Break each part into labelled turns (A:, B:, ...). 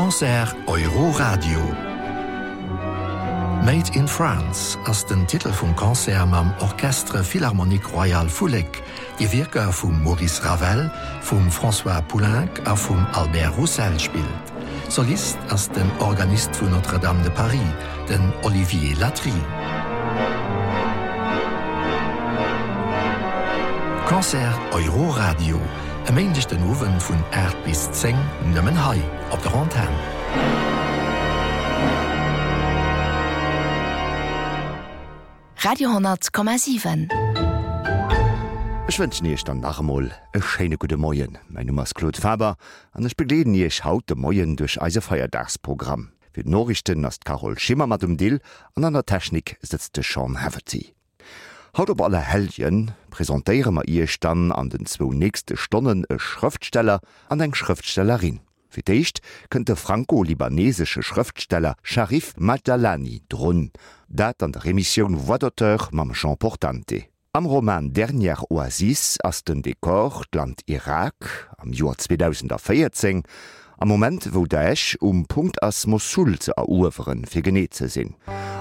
A: Concert Euroradio. Made in France ass den Titel vum Konzert mam Orchestre Philharmonique Royal Fulek, die Wirker vum Maurice Ravel, vum François Poulenc a vum Albert Roussel spielt. Solist ass den Organist vu Notre-Dame de Paris, den Olivier Latry. Konzert Euroradio, emeendigchten Owen vun 8 bis 10 nëmmen Hai op der Antenne.
B: Radio 10,7.
C: Ich wünsche euch dann nachher ein schöne gute Morgen. Mein Name ist Claude Faber und ich begleite euch heute Morgen durch unser Feiertagsprogramm. Für die Nachrichten ist Carol Schimmer mit dem Deal und an der Technik sitzt Sean Haverty. Heute auf alle Helden präsentieren wir euch dann an den 2 nächsten Stunden einen Schriftsteller und eine Schriftstellerin. Für dich könnte der franco-libanesische Schriftsteller Sharif Madjalani drun, dat an der Remission Voix d'auteur mam Jean Portante. Am Roman Dernière Oasis ass den Dekor Land Irak am Joar 2014, am Moment wo Daesh Punkt ass Mosul ze eruferen fir genet ze sinn.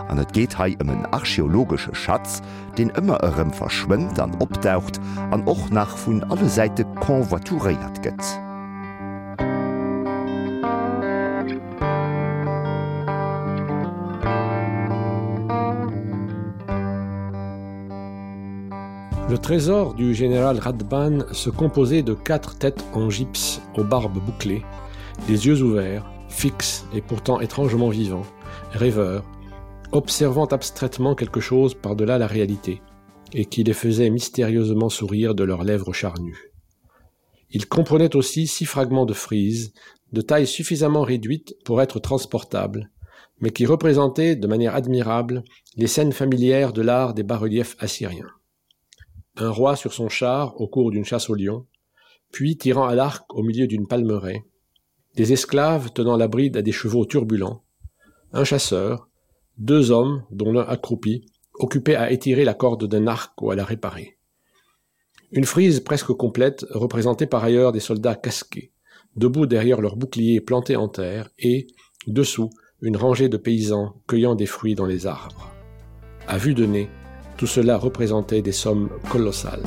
C: An et geht hei en archäologische Schatz, den ëmmer ërem verschwimmt an optaucht an och nach vun alle Seite konvoituréiert gëtt.
D: Le trésor du général Radban se composait de 4 têtes en gypse aux barbes bouclées, des yeux ouverts, fixes et pourtant étrangement vivants, rêveurs, observant abstraitement quelque chose par-delà la réalité, et qui les faisait mystérieusement sourire de leurs lèvres charnues. Ils comprenaient aussi 6 fragments de frise, de taille suffisamment réduite pour être transportables, mais qui représentaient de manière admirable les scènes familières de l'art des bas-reliefs assyriens. Un roi sur son char au cours d'une chasse au lion, puis tirant à l'arc au milieu d'une palmeraie, des esclaves tenant la bride à des chevaux turbulents, un chasseur, 2 hommes, dont l'un accroupi, occupés à étirer la corde d'un arc ou à la réparer. Une frise presque complète représentait par ailleurs des soldats casqués, debout derrière leurs boucliers plantés en terre et, dessous, une rangée de paysans cueillant des fruits dans les arbres. À vue de nez, tout cela représentait des sommes colossales.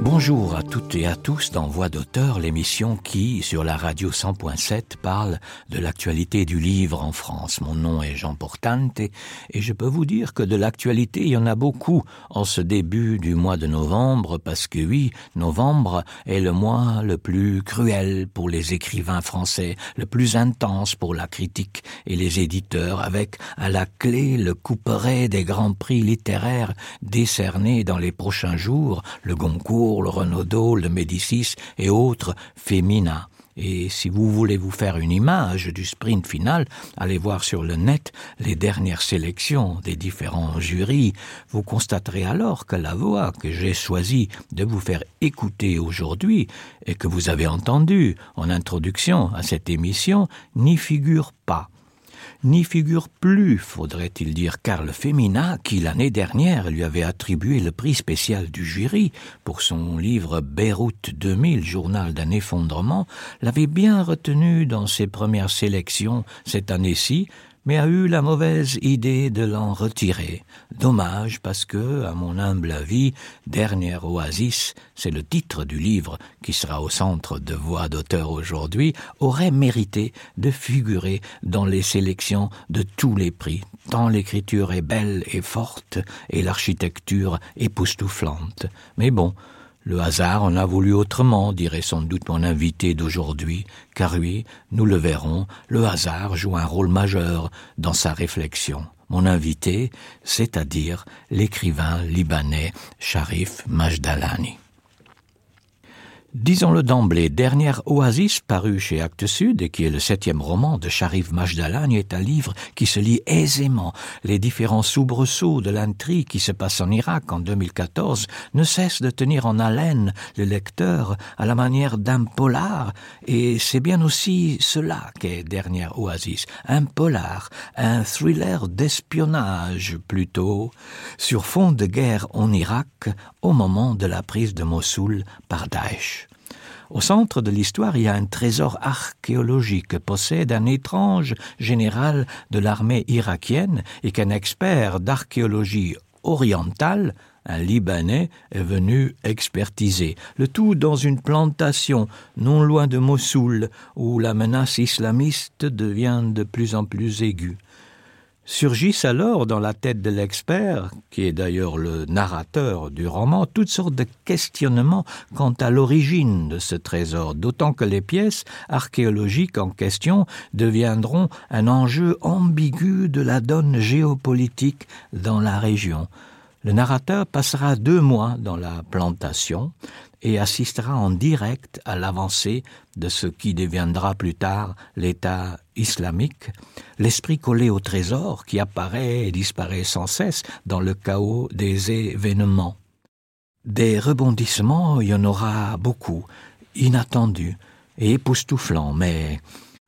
E: Bonjour à toutes et à tous dans Voix d'auteur, l'émission qui, sur la radio 100.7, parle de l'actualité du livre en France. Mon nom est Jean Portante et je peux vous dire que de l'actualité, il y en a beaucoup en ce début du mois de novembre parce que oui, novembre est le mois le plus cruel pour les écrivains français, le plus intense pour la critique et les éditeurs, avec à la clé le couperet des grands prix littéraires décernés dans les prochains jours, le Goncourt, le Renaudot, le Médicis et autres féminins. Et si vous voulez vous faire une image du sprint final, allez voir sur le net les dernières sélections des différents jurys. Vous constaterez alors que la voix que j'ai choisi de vous faire écouter aujourd'hui et que vous avez entendue en introduction à cette émission n'y figure pas. N'y figure plus, faudrait-il dire, car le Féminin, qui l'année dernière lui avait attribué le prix spécial du jury pour son livre Beyrouth 2000, journal d'un effondrement, l'avait bien retenu dans ses premières sélections cette année-ci, mais a eu la mauvaise idée de l'en retirer. Dommage parce que, à mon humble avis, Dernière Oasis, c'est le titre du livre qui sera au centre de Voix d'auteur aujourd'hui, aurait mérité de figurer dans les sélections de tous les prix, tant l'écriture est belle et forte et l'architecture époustouflante. Mais bon, le hasard en a voulu autrement, dirait sans doute mon invité d'aujourd'hui, car oui, nous le verrons, le hasard joue un rôle majeur dans sa réflexion. Mon invité, c'est-à-dire l'écrivain libanais Sharif Madjalani. Disons-le d'emblée, Dernière Oasis, paru chez Actes Sud et qui est le 7e roman de Sharif Majdalan, est un livre qui se lit aisément. Les différents soubresauts de l'intrigue qui se passe en Irak en 2014 ne cessent de tenir en haleine le lecteur à la manière d'un polar, et c'est bien aussi cela qu'est Dernière Oasis, un polar, un thriller d'espionnage plutôt, sur fond de guerre en Irak au moment de la prise de Mossoul par Daesh. Au centre de l'histoire, il y a un trésor archéologique que possède un étrange général de l'armée irakienne et qu'un expert d'archéologie orientale, un Libanais, est venu expertiser. Le tout dans une plantation non loin de Mossoul, où la menace islamiste devient de plus en plus aiguë. Surgissent alors dans la tête de l'expert, qui est d'ailleurs le narrateur du roman, toutes sortes de questionnements quant à l'origine de ce trésor, d'autant que les pièces archéologiques en question deviendront un enjeu ambigu de la donne géopolitique dans la région. Le narrateur passera 2 mois dans la plantation et assistera en direct à l'avancée de ce qui deviendra plus tard l'État islamique, l'esprit collé au trésor qui apparaît et disparaît sans cesse dans le chaos des événements. Des rebondissements, il y en aura beaucoup, inattendus et époustouflants, mais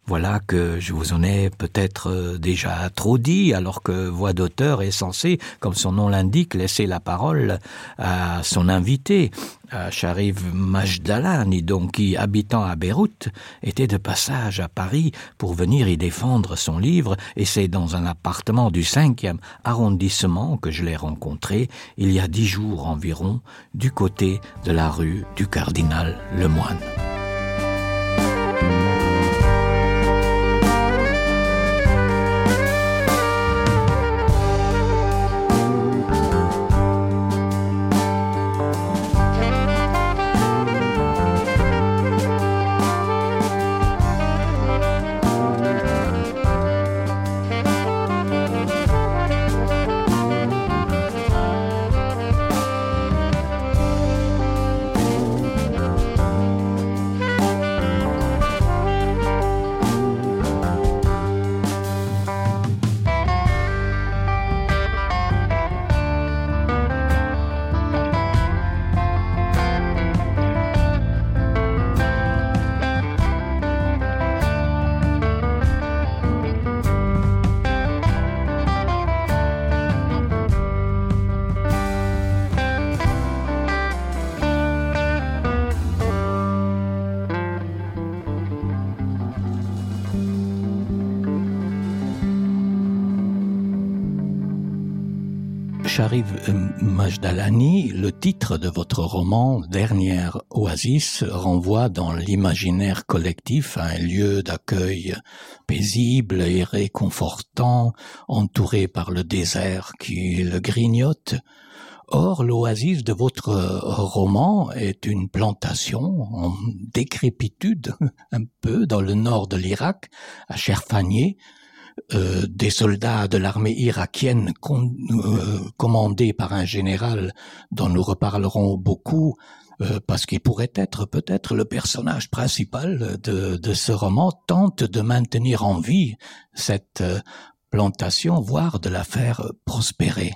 E: voilà que je vous en ai peut-être déjà trop dit, alors que Voix d'auteur est censée, comme son nom l'indique, laisser la parole à son invité, à Sharif Majdalan, donc qui, habitant à Beyrouth, était de passage à Paris pour venir y défendre son livre, et c'est dans un appartement du 5e arrondissement que je l'ai rencontré, il y a 10 jours environ, du côté de la rue du Cardinal Lemoine. Sharif Majdalani, le titre de votre roman « Dernière Oasis » renvoie dans l'imaginaire collectif à un lieu d'accueil paisible et réconfortant, entouré par le désert qui le grignote. Or, l'oasis de votre roman est une plantation en décrépitude, un peu dans le nord de l'Irak, à Cherfanieh, des soldats de l'armée irakienne commandés par un général dont nous reparlerons beaucoup parce qu'il pourrait être peut-être le personnage principal de ce roman, tente de maintenir en vie cette plantation, voire de la faire prospérer.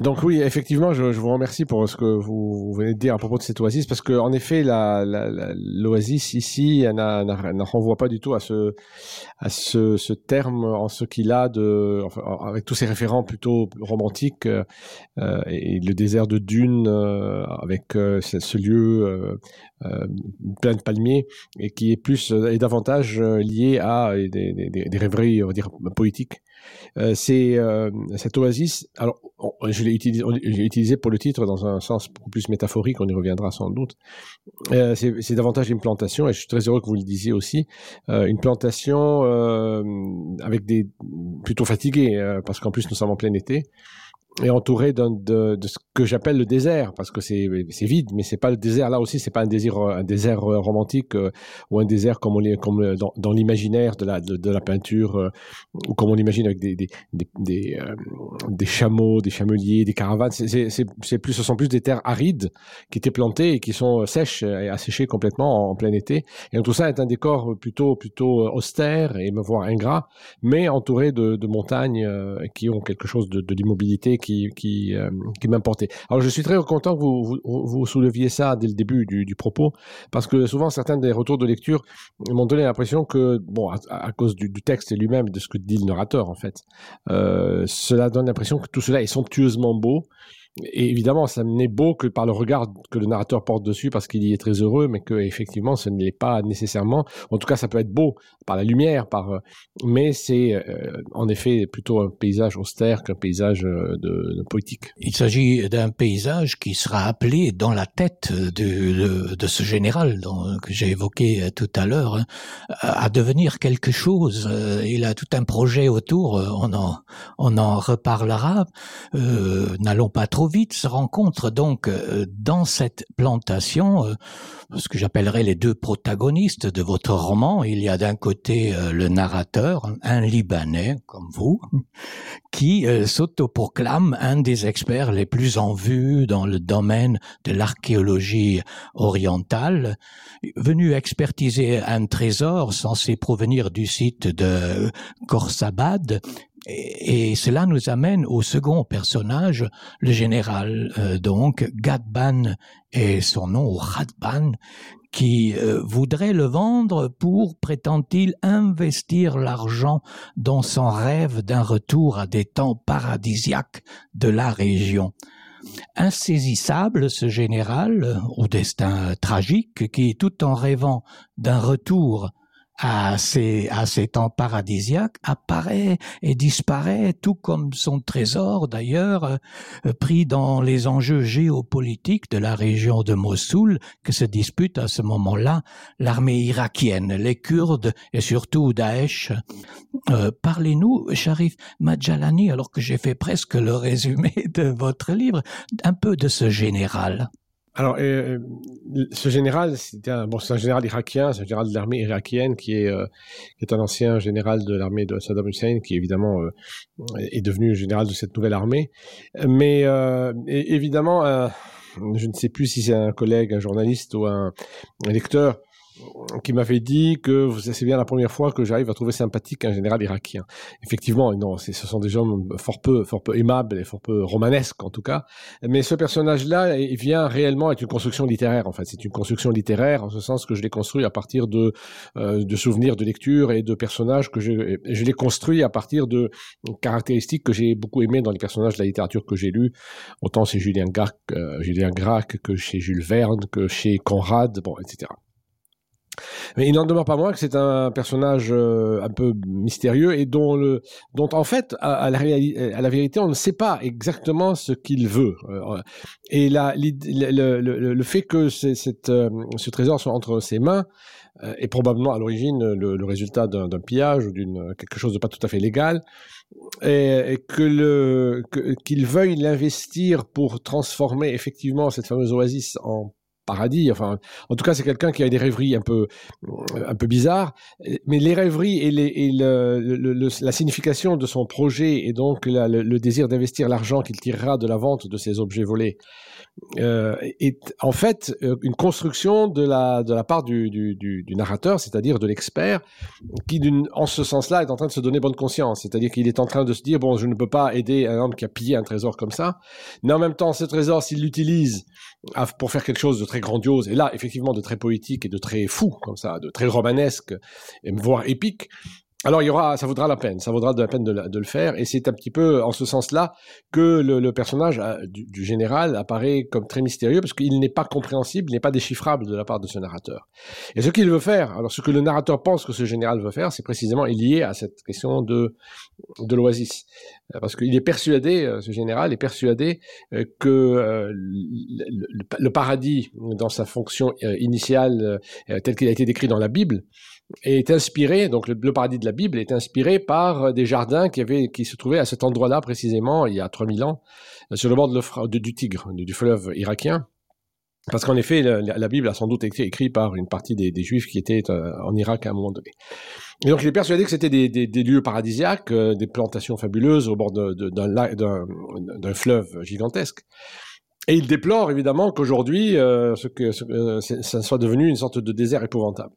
D: Donc oui, effectivement, je vous remercie pour ce que vous venez de dire à propos de cette oasis, parce que en effet, l'oasis ici, elle ne renvoie pas du tout à ce terme en ce qu'il a avec tous ces référents plutôt romantiques et le désert de dunes avec ce lieu plein de palmiers et qui est plus et davantage lié à des rêveries, on va dire, poétiques. Cette oasis, alors je l'ai utilisé pour le titre dans un sens beaucoup plus métaphorique, on y reviendra sans doute. C'est davantage une plantation, et je suis très heureux que vous le disiez aussi, une plantation avec plutôt fatiguée, parce qu'en plus nous sommes en plein été, est entouré de ce que j'appelle le désert, parce que c'est vide, mais c'est pas le désert. Là aussi, c'est pas un désert romantique ou un désert comme dans l'imaginaire de la peinture, ou comme on l'imagine avec des chameaux, des chameliers, des caravanes. Ce sont plus des terres arides qui étaient plantées et qui sont sèches et asséchées complètement en plein été. Et donc, tout ça est un décor plutôt austère et voire ingrat, mais entouré de montagnes qui ont quelque chose de l'immobilité qui m'importait. Alors je suis très content que vous souleviez ça dès le début du propos, parce que souvent certains des retours de lecture m'ont donné l'impression que, bon, à cause du texte lui-même, de ce que dit le narrateur en fait, cela donne l'impression que tout cela est somptueusement beau. Et évidemment, ça n'est beau que par le regard que le narrateur porte dessus, parce qu'il y est très heureux, mais que effectivement, ce n'est pas nécessairement. En tout cas, ça peut être beau par la lumière, mais c'est en effet plutôt un paysage austère qu'un paysage de poétique.
E: Il s'agit d'un paysage qui sera appelé dans la tête de ce général que j'ai évoqué tout à l'heure, à devenir quelque chose. Il a tout un projet autour. On en reparlera. N'allons pas trop vite. Se rencontrent donc dans cette plantation ce que j'appellerais les deux protagonistes de votre roman. Il y a d'un côté le narrateur, un Libanais comme vous, qui s'autoproclame un des experts les plus en vue dans le domaine de l'archéologie orientale, venu expertiser un trésor censé provenir du site de Khorsabad. Et cela nous amène au second personnage, le général, donc Ghadban est son nom, ou Ghadban, qui voudrait le vendre pour, prétend-il, investir l'argent dans son rêve d'un retour à des temps paradisiaques de la région. Insaisissable, ce général, au destin tragique, qui, tout en rêvant d'un retour à ces temps paradisiaques, apparaît et disparaît, tout comme son trésor d'ailleurs, pris dans les enjeux géopolitiques de la région de Mossoul, que se dispute à ce moment-là l'armée irakienne, les Kurdes et surtout Daesh. Parlez-nous, Sharif Madjalani, alors que j'ai fait presque le résumé de votre livre, un peu de ce général.
D: Alors, ce général, c'est un général irakien, c'est un général de l'armée irakienne qui est un ancien général de l'armée de Saddam Hussein, qui évidemment est devenu général de cette nouvelle armée. Mais évidemment, je ne sais plus si c'est un collègue, un journaliste ou un lecteur qui m'avait dit que c'est bien la première fois que j'arrive à trouver sympathique un général irakien. Effectivement, non, ce sont des gens fort peu aimables et fort peu romanesques en tout cas. Mais ce personnage-là, il vient réellement être une construction littéraire. En fait, c'est une construction littéraire en ce sens que je l'ai construit à partir de souvenirs de lecture et de personnages que je l'ai construit à partir de caractéristiques que j'ai beaucoup aimées dans les personnages de la littérature que j'ai lus. Autant chez Julien Gracq que chez Jules Verne, que chez Conrad, bon, etc. Mais il n'en demeure pas moins que c'est un personnage un peu mystérieux et dont en fait, à la vérité, on ne sait pas exactement ce qu'il veut. Et le fait que ce trésor soit entre ses mains est probablement à l'origine le résultat d'un pillage ou quelque chose de pas tout à fait légal, et qu'il veuille l'investir pour transformer effectivement cette fameuse oasis en paradis. Enfin, en tout cas, c'est quelqu'un qui a des rêveries un peu bizarres, mais les rêveries et la signification de son projet et donc le désir d'investir l'argent qu'il tirera de la vente de ces objets volés est en fait une construction de la part du narrateur, c'est-à-dire de l'expert, qui en ce sens-là est en train de se donner bonne conscience, c'est-à-dire qu'il est en train de se dire, bon, je ne peux pas aider un homme qui a pillé un trésor comme ça, mais en même temps, ce trésor, s'il l'utilise pour faire quelque chose de très grandiose, et là, effectivement, de très poétique et de très fou, comme ça, de très romanesque, voire épique, alors ça vaudra la peine de le faire, et c'est un petit peu en ce sens-là que le personnage du général apparaît comme très mystérieux, parce qu'il n'est pas compréhensible, il n'est pas déchiffrable de la part de ce narrateur. Et ce qu'il veut faire, alors ce que le narrateur pense que ce général veut faire, c'est précisément lié à cette question de l'oasis. Parce qu'il est persuadé, ce général est persuadé que le paradis, dans sa fonction initiale, tel qu'il a été décrit dans la Bible, est inspiré, donc le paradis de la Bible est inspiré par des jardins qui se trouvaient à cet endroit-là précisément il y a 3000 ans, sur le bord du Tigre, du fleuve irakien. Parce qu'en effet, la Bible a sans doute été écrite par une partie des Juifs qui étaient en Irak à un moment donné. Et donc il est persuadé que c'était des lieux paradisiaques, des plantations fabuleuses au bord d'un fleuve gigantesque. Et il déplore évidemment qu'aujourd'hui, ça soit devenu une sorte de désert épouvantable.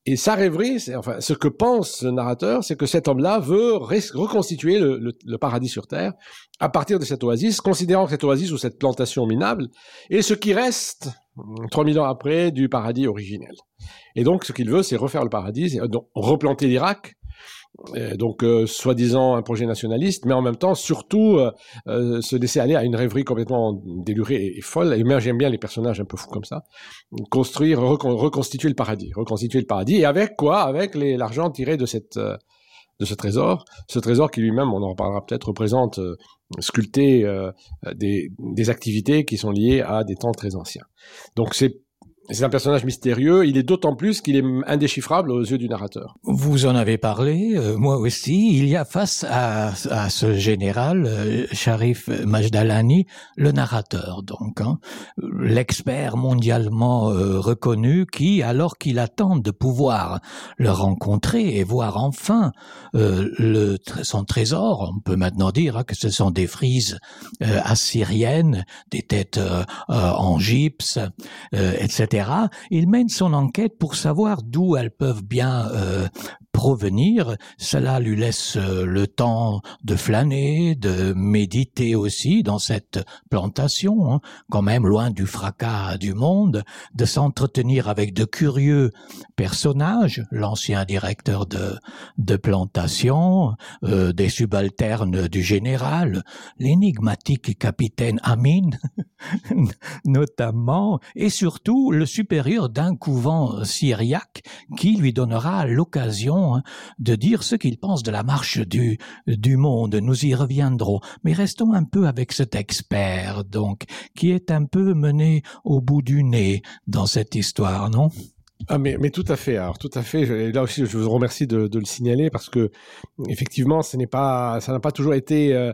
D: Et sa rêverie, ce que pense le narrateur, c'est que cet homme-là veut reconstituer le paradis sur Terre à partir de cette oasis, considérant que cette oasis ou cette plantation minable est ce qui reste 3000 ans après du paradis originel. Et donc, ce qu'il veut, c'est refaire le paradis, donc replanter l'Irak, donc soi-disant un projet nationaliste, mais en même temps surtout se laisser aller à une rêverie complètement délurée et folle. Et moi j'aime bien les personnages un peu fous comme ça. Reconstituer le paradis, et avec quoi? Avec l'argent tiré de ce trésor qui lui-même, on en reparlera peut-être, représente sculpté des activités qui sont liées à des temps très anciens. Donc c'est un personnage mystérieux, il est d'autant plus qu'il est indéchiffrable aux yeux du narrateur.
E: Vous en avez parlé, moi aussi. Il y a face à ce général, Sharif Majdalani, le narrateur, donc, l'expert mondialement reconnu qui, alors qu'il attend de pouvoir le rencontrer et voir enfin son trésor, on peut maintenant dire que ce sont des frises assyriennes, des têtes en gypse, etc. Il mène son enquête pour savoir d'où elles peuvent bien provenir. Cela lui laisse le temps de flâner, de méditer aussi dans cette plantation, quand même loin du fracas du monde, de s'entretenir avec de curieux personnages, l'ancien directeur de plantation, des subalternes du général, l'énigmatique capitaine Amin, notamment, et surtout le supérieur d'un couvent syriaque qui lui donnera l'occasion de dire ce qu'il pense de la marche du monde. Nous y reviendrons. Mais restons un peu avec cet expert, donc, qui est un peu mené au bout du nez dans cette histoire, non ?
D: Ah mais tout à fait. Alors tout à fait. Là aussi, je vous remercie de le signaler parce que effectivement, ça n'a pas toujours été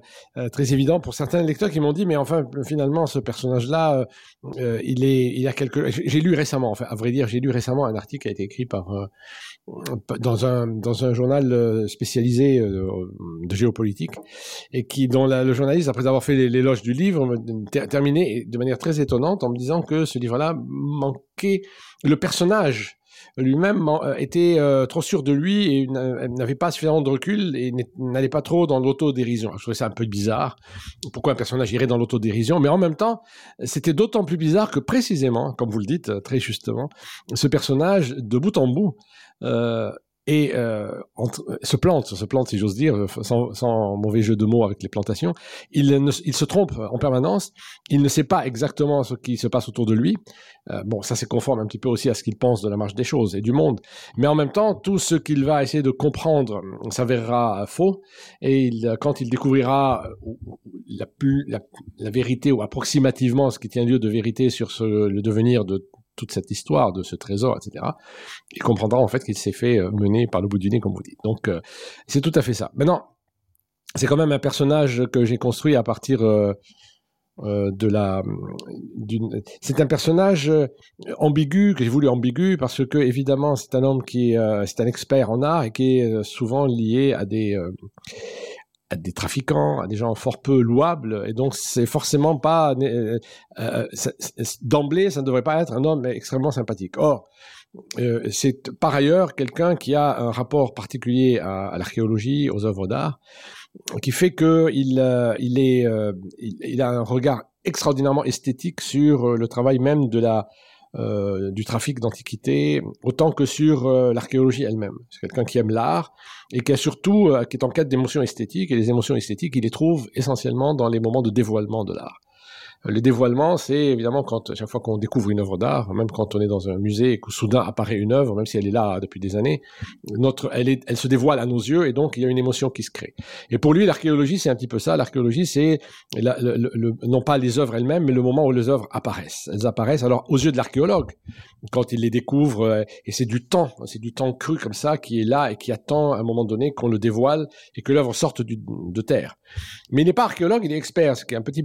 D: très évident pour certains lecteurs qui m'ont dit mais enfin finalement ce personnage-là, il a j'ai lu récemment. Enfin, à vrai dire, j'ai lu récemment un article qui a été écrit dans un journal spécialisé de géopolitique et dont le journaliste, après avoir fait l'éloge du livre, terminé de manière très étonnante en me disant que ce livre-là manquait. Le personnage lui-même était trop sûr de lui et n'avait pas suffisamment de recul et n'allait pas trop dans l'autodérision. Je trouvais ça un peu bizarre. Pourquoi un personnage irait dans l'autodérision? Mais en même temps, c'était d'autant plus bizarre que précisément, comme vous le dites très justement, ce personnage, de bout en bout, se plante si j'ose dire, sans mauvais jeu de mots avec les plantations. Il se trompe en permanence, il ne sait pas exactement ce qui se passe autour de lui. Bon, ça c'est conforme un petit peu aussi à ce qu'il pense de la marche des choses et du monde, mais en même temps, tout ce qu'il va essayer de comprendre s'avérera faux, et quand il découvrira la vérité, ou approximativement ce qui tient lieu de vérité sur le devenir de toute cette histoire de ce trésor, etc., il comprendra en fait qu'il s'est fait mener par le bout du nez, comme vous dites. Donc, c'est tout à fait ça. Maintenant, c'est quand même un personnage que j'ai construit à partir c'est un personnage ambigu, que j'ai voulu ambigu, parce que, évidemment, c'est un homme c'est un expert en art et qui est souvent lié à des trafiquants, à des gens fort peu louables, et donc c'est forcément pas d'emblée, ça ne devrait pas être un homme extrêmement sympathique. Or, c'est par ailleurs quelqu'un qui a un rapport particulier à l'archéologie, aux œuvres d'art, qui fait que il a un regard extraordinairement esthétique sur le travail même du trafic d'antiquités, autant que sur l'archéologie elle-même. C'est quelqu'un qui aime l'art et qui est en quête d'émotions esthétiques, et les émotions esthétiques, il les trouve essentiellement dans les moments de dévoilement de l'art. Le dévoilement, c'est évidemment quand, chaque fois qu'on découvre une œuvre d'art, même quand on est dans un musée et que soudain apparaît une œuvre, même si elle est là depuis des années, elle se dévoile à nos yeux et donc il y a une émotion qui se crée. Et pour lui, l'archéologie, c'est un petit peu ça. L'archéologie, c'est non pas les œuvres elles-mêmes, mais le moment où les œuvres apparaissent. Elles apparaissent alors aux yeux de l'archéologue, quand il les découvre, et c'est du temps cru comme ça qui est là et qui attend à un moment donné qu'on le dévoile et que l'œuvre sorte de terre. Mais il n'est pas archéologue, il est expert, ce qui est un petit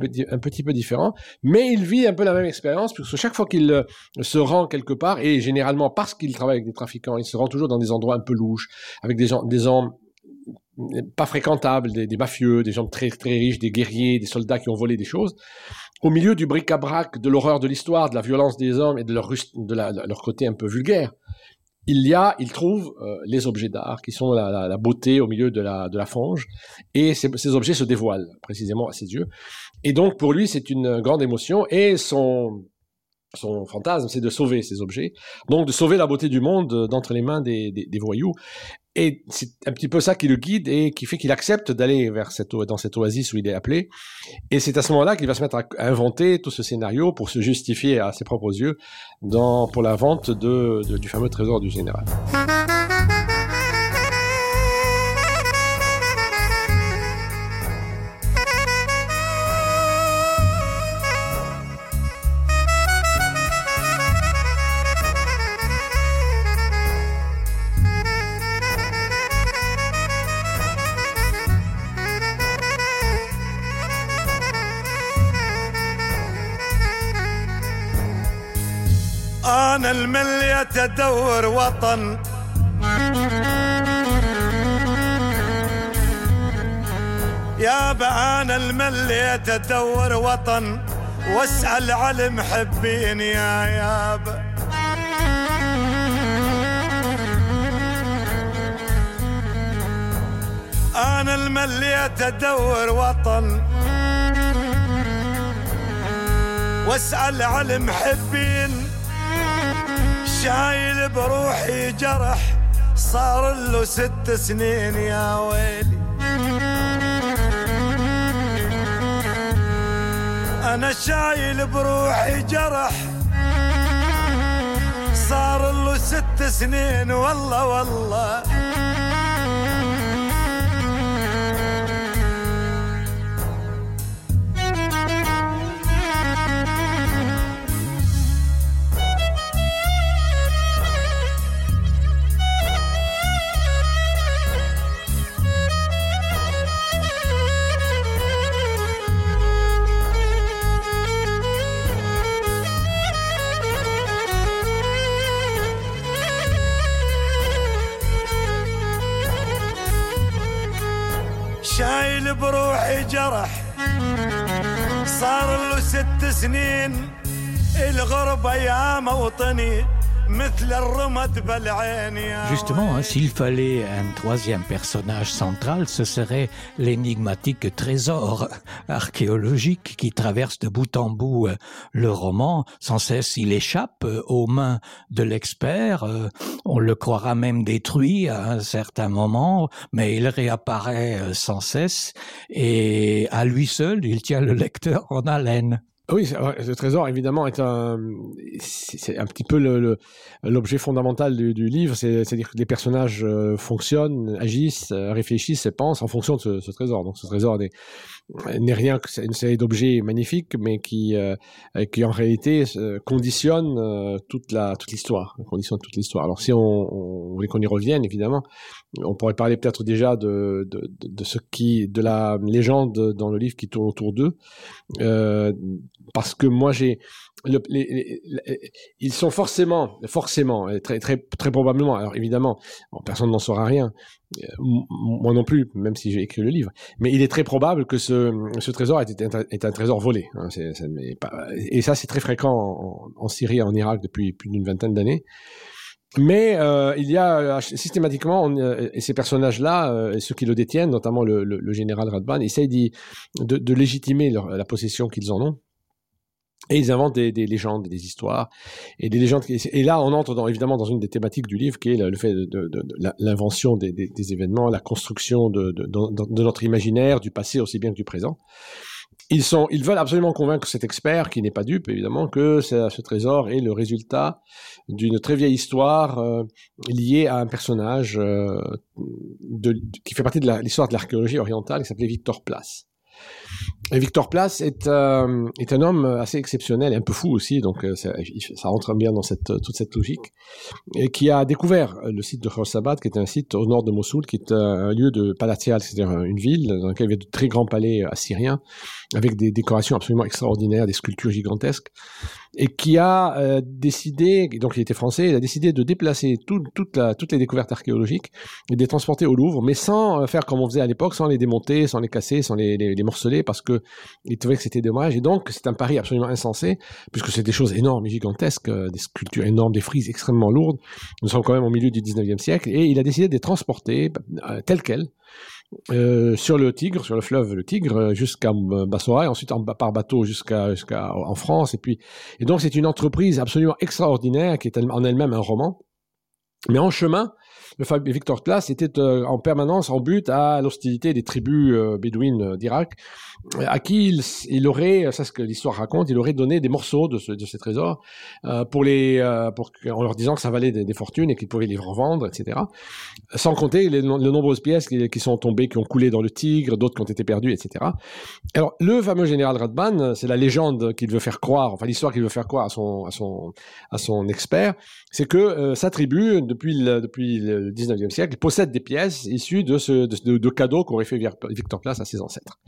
D: peu différent, mais il vit un peu la même expérience, puisque chaque fois qu'il se rend quelque part, et généralement parce qu'il travaille avec des trafiquants, il se rend toujours dans des endroits un peu louches, avec des gens pas fréquentables, des mafieux, des gens très, très riches, des guerriers, des soldats qui ont volé des choses, au milieu du bric-à-brac, de l'horreur de l'histoire, de la violence des hommes et de leur côté un peu vulgaire, il trouve les objets d'art qui sont la beauté au milieu de la fange, et ces objets se dévoilent précisément à ses yeux. Et donc pour lui c'est une grande émotion, et son fantasme c'est de sauver ces objets, donc de sauver la beauté du monde d'entre les mains des voyous. Et c'est un petit peu ça qui le guide et qui fait qu'il accepte d'aller dans cette oasis où il est appelé. Et c'est à ce moment-là qu'il va se mettre à inventer tout ce scénario pour se justifier à ses propres yeux pour la vente du fameux trésor du général.
F: أنا الملي تدور وطن يابا أنا الملي تدور وطن واسأل على المحبين يا يابا أنا الملي تدور وطن واسأل على المحبين شايل بروحي جرح صار له 6 سنين يا ويلي أنا شايل بروحي جرح صار له 6 سنين والله والله شايل بروحي جرح صار له 6 سنين الغربة يا موطني مثل الرمد بالعين يا
E: Justement, s'il fallait un troisième personnage central, ce serait l'énigmatique trésor archéologique qui traverse de bout en bout le roman. Sans cesse, il échappe aux mains de l'expert. On le croira même détruit à un certain moment, mais il réapparaît sans cesse et à lui seul, il tient le lecteur en haleine.
D: Oui, le trésor, évidemment, c'est un petit peu l'objet fondamental du livre, c'est-à-dire que les personnages fonctionnent, agissent, réfléchissent et pensent en fonction de ce trésor. Donc ce trésor n'est rien que c'est une série d'objets magnifiques, mais qui en réalité conditionne toute l'histoire. Alors si on voulait qu'on y revienne, évidemment, on pourrait parler peut-être déjà de la légende dans le livre qui tourne autour d'eux, parce que moi ils sont forcément, très, très, très probablement, alors évidemment, personne n'en saura rien, moi non plus, même si j'ai écrit le livre, mais il est très probable que ce trésor est un trésor volé, hein, et ça c'est très fréquent en Syrie et en Irak depuis plus d'une vingtaine d'années. Mais il y a systématiquement, et ces personnages-là, et ceux qui le détiennent, notamment le général Radban, essayent de légitimer la possession qu'ils en ont. Et ils inventent des légendes, des histoires, et des légendes. Et là, on entre évidemment dans une des thématiques du livre, qui est le fait de l'invention des événements, la construction de notre imaginaire, du passé aussi bien que du présent. Ils veulent absolument convaincre cet expert, qui n'est pas dupe évidemment, que ce trésor est le résultat d'une très vieille histoire liée à un personnage qui fait partie de l'histoire de l'archéologie orientale, qui s'appelait Victor Place. Et Victor Place est un homme assez exceptionnel et un peu fou aussi, donc ça rentre bien dans toute cette logique, et qui a découvert le site de Khorsabad, qui est un site au nord de Mossoul, qui est un lieu de palatial, c'est-à-dire une ville dans laquelle il y avait de très grands palais assyriens, avec des décorations absolument extraordinaires, des sculptures gigantesques, et qui a décidé, donc il était français, il a décidé de déplacer toutes les découvertes archéologiques et de les transporter au Louvre, mais sans faire comme on faisait à l'époque, sans les démonter, sans les casser, sans les morceler, parce que il trouvait que c'était dommage. Et donc c'est un pari absolument insensé, puisque c'est des choses énormes et gigantesques, des sculptures énormes, des frises extrêmement lourdes. Nous sommes quand même au milieu du 19e siècle, et il a décidé de les transporter telles quelles sur le Tigre, sur le fleuve le Tigre, jusqu'à Bassora, et ensuite par bateau jusqu'à en France. Et donc c'est une entreprise absolument extraordinaire qui est en elle-même un roman. Mais en chemin, le Victor Place était en permanence en but à l'hostilité des tribus bédouines d'Irak, à qui il aurait, ça c'est ce que l'histoire raconte, il aurait donné des morceaux de ces trésors en leur disant que ça valait des fortunes et qu'ils pouvaient les revendre, etc. Sans compter les nombreuses pièces qui sont tombées, qui ont coulé dans le Tigre, d'autres qui ont été perdues, etc. Alors le fameux général Radban, c'est la légende qu'il veut faire croire, enfin l'histoire qu'il veut faire croire à son expert, c'est que sa tribu, depuis le 19e siècle, possède des pièces issues de cadeaux qu'aurait fait Victor Place à ses ancêtres.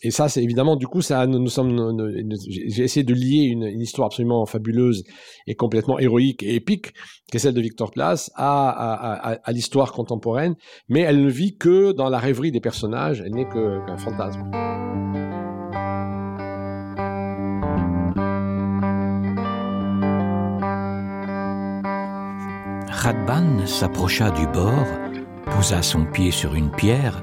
D: Et ça, c'est évidemment, du coup, j'ai essayé de lier une histoire absolument fabuleuse et complètement héroïque et épique, qui est celle de Victor Place, à l'histoire contemporaine, mais elle ne vit que dans la rêverie des personnages, elle n'est qu'un fantasme.
E: Radban s'approcha du bord, posa son pied sur une pierre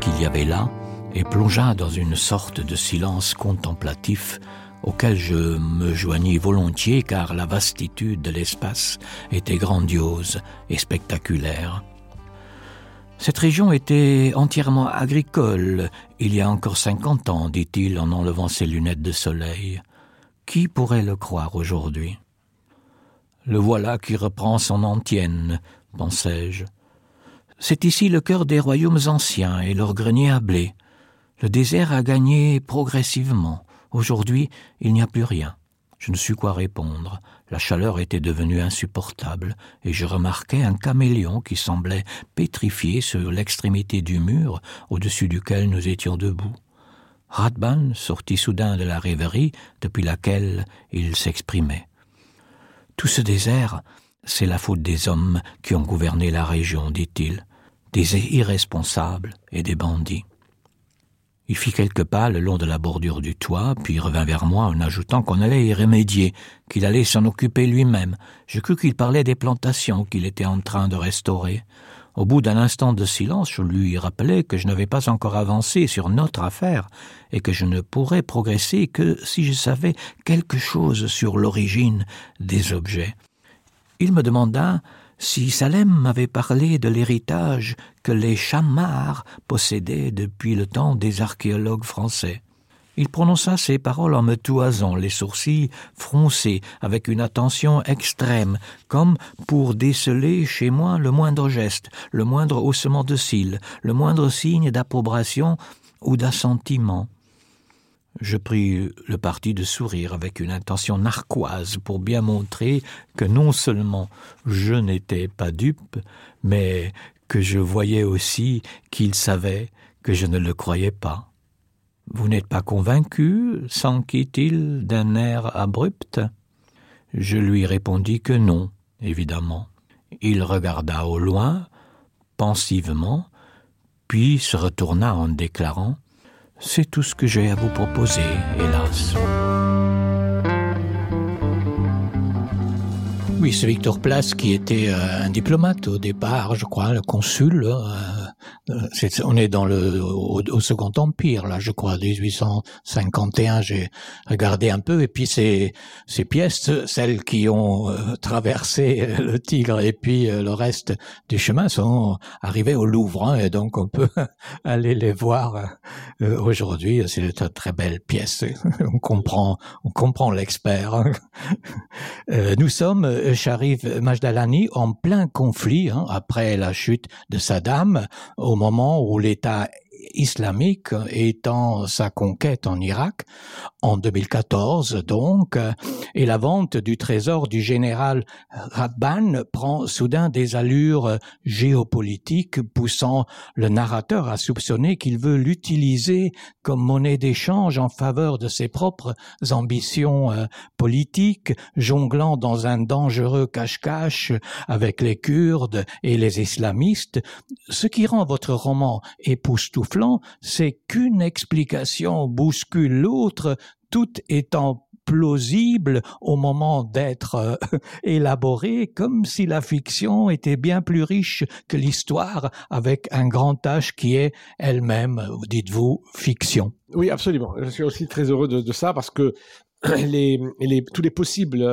E: qu'il y avait là et plongea dans une sorte de silence contemplatif auquel je me joignis volontiers car la vastitude de l'espace était grandiose et spectaculaire. Cette région était entièrement agricole, il y a encore 50 ans, dit-il en enlevant ses lunettes de soleil. Qui pourrait le croire aujourd'hui ? Le voilà qui reprend son antienne, pensai-je. C'est ici le cœur des royaumes anciens et leur grenier à blé. Le désert a gagné progressivement. Aujourd'hui, il n'y a plus rien. Je ne sus quoi répondre. La chaleur était devenue insupportable et je remarquai un caméléon qui semblait pétrifié sur l'extrémité du mur au-dessus duquel nous étions debout. Radban sortit soudain de la rêverie depuis laquelle il s'exprimait. Tout ce désert, c'est la faute des hommes qui ont gouverné la région, dit-il, des irresponsables et des bandits. Il fit quelques pas le long de la bordure du toit, puis revint vers moi en ajoutant qu'on allait y remédier, qu'il allait s'en occuper lui-même. Je crus qu'il parlait des plantations qu'il était en train de restaurer. Au bout d'un instant de silence, je lui rappelai que je n'avais pas encore avancé sur notre affaire et que je ne pourrais progresser que si je savais quelque chose sur l'origine des objets. Il me demanda si Salem m'avait parlé de l'héritage que les Chamars possédaient depuis le temps des archéologues français. Il prononça ces paroles en me toisant, les sourcils froncés, avec une attention extrême, comme pour déceler chez moi le moindre geste, le moindre haussement de cils, le moindre signe d'approbation ou d'assentiment. Je pris le parti de sourire avec une intention narquoise pour bien montrer que non seulement je n'étais pas dupe, mais que je voyais aussi qu'il savait que je ne le croyais pas. « Vous n'êtes pas convaincu ?» s'enquit-il d'un air abrupt. Je lui répondis que non, évidemment. Il regarda au loin, pensivement, puis se retourna en déclarant « C'est tout ce que j'ai à vous proposer, hélas. » Oui, ce Victor Place qui était un diplomate au départ, je crois, le consul On est dans au Second Empire, là, je crois, 1851, j'ai regardé un peu, et puis ces pièces, celles qui ont traversé le Tigre et puis le reste du chemin sont arrivées au Louvre, hein, et donc on peut aller les voir aujourd'hui. C'est une très belle pièce. On comprend l'expert. Hein. Nous sommes, Sharif Majdalani, en plein conflit, hein, après la chute de Saddam, au moment où l'État islamique étant sa conquête en Irak, en 2014 donc, et la vente du trésor du général Radban prend soudain des allures géopolitiques, poussant le narrateur à soupçonner qu'il veut l'utiliser comme monnaie d'échange en faveur de ses propres ambitions politiques, jonglant dans un dangereux cache-cache avec les Kurdes et les islamistes. Ce qui rend votre roman époustouflant, c'est qu'une explication bouscule l'autre, tout étant plausible au moment d'être élaboré, comme si la fiction était bien plus riche que l'histoire, avec un grand H qui est elle-même, dites-vous, fiction.
D: Oui, absolument. Je suis aussi très heureux de ça, parce que tous les possibles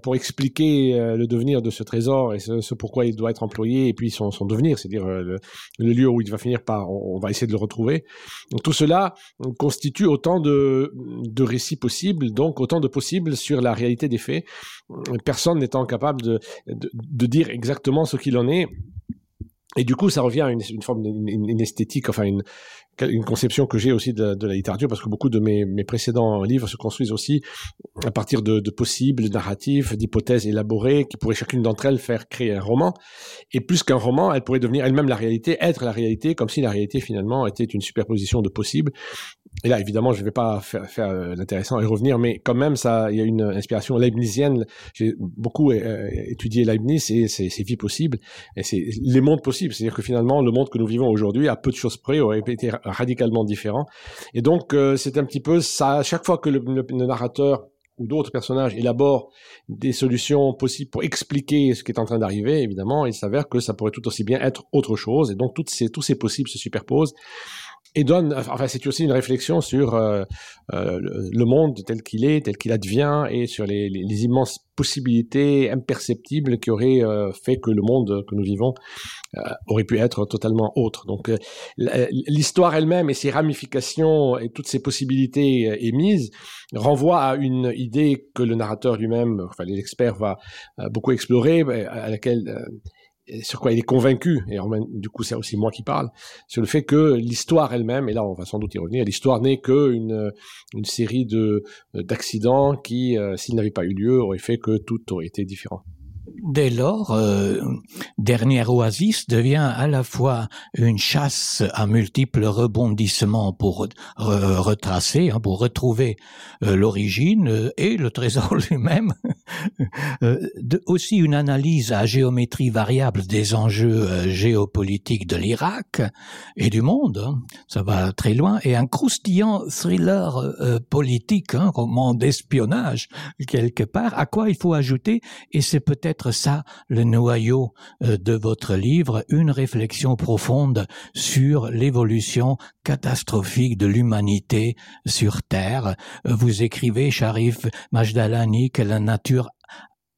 D: pour expliquer le devenir de ce trésor et ce pourquoi il doit être employé, et puis son devenir, c'est-à-dire le lieu où il va finir par, on va essayer de le retrouver. Donc tout cela constitue autant de récits possibles, donc autant de possibles sur la réalité des faits, personne n'étant capable de dire exactement ce qu'il en est. Et du coup, ça revient à une forme d'une esthétique, enfin une conception que j'ai aussi de la littérature, parce que beaucoup de mes précédents livres se construisent aussi à partir de possibles narratifs, d'hypothèses élaborées, qui pourraient chacune d'entre elles faire créer un roman. Et plus qu'un roman, elle pourrait devenir elle-même la réalité, être la réalité, comme si la réalité finalement était une superposition de possibles. Et là, évidemment, je ne vais pas faire l'intéressant et revenir, mais quand même, il y a une inspiration leibnizienne. J'ai beaucoup étudié Leibniz et ses vies possibles, et c'est les mondes possibles. C'est-à-dire que finalement, le monde que nous vivons aujourd'hui, à peu de choses près, aurait été radicalement différent. Et donc, c'est un petit peu ça. Chaque fois que le narrateur ou d'autres personnages élaborent des solutions possibles pour expliquer ce qui est en train d'arriver, évidemment, il s'avère que ça pourrait tout aussi bien être autre chose. Et donc, tous ces possibles se superposent. Et c'est aussi une réflexion sur le monde tel qu'il advient, et sur les immenses possibilités imperceptibles qui auraient fait que le monde que nous vivons aurait pu être totalement autre. Donc l'histoire elle-même et ses ramifications et toutes ces possibilités émises renvoient à une idée que le narrateur lui-même, enfin l'expert, va beaucoup explorer, à laquelle sur quoi il est convaincu, et du coup c'est aussi moi qui parle, sur le fait que l'histoire elle-même, et là on va sans doute y revenir, l'histoire n'est qu'une série d'accidents qui, s'ils n'avaient pas eu lieu, auraient fait que tout aurait été différent.
E: Dès lors, Dernière Oasis devient à la fois une chasse à multiples rebondissements pour retracer, pour retrouver l'origine et le trésor lui-même, aussi une analyse à géométrie variable des enjeux géopolitiques de l'Irak et du monde, ça va très loin, et un croustillant thriller politique, roman d'espionnage quelque part, à quoi il faut ajouter, et c'est peut-être ça le noyau de votre livre, une réflexion profonde sur l'évolution catastrophique de l'humanité sur Terre. Vous écrivez, Sharif Majdalani, que la nature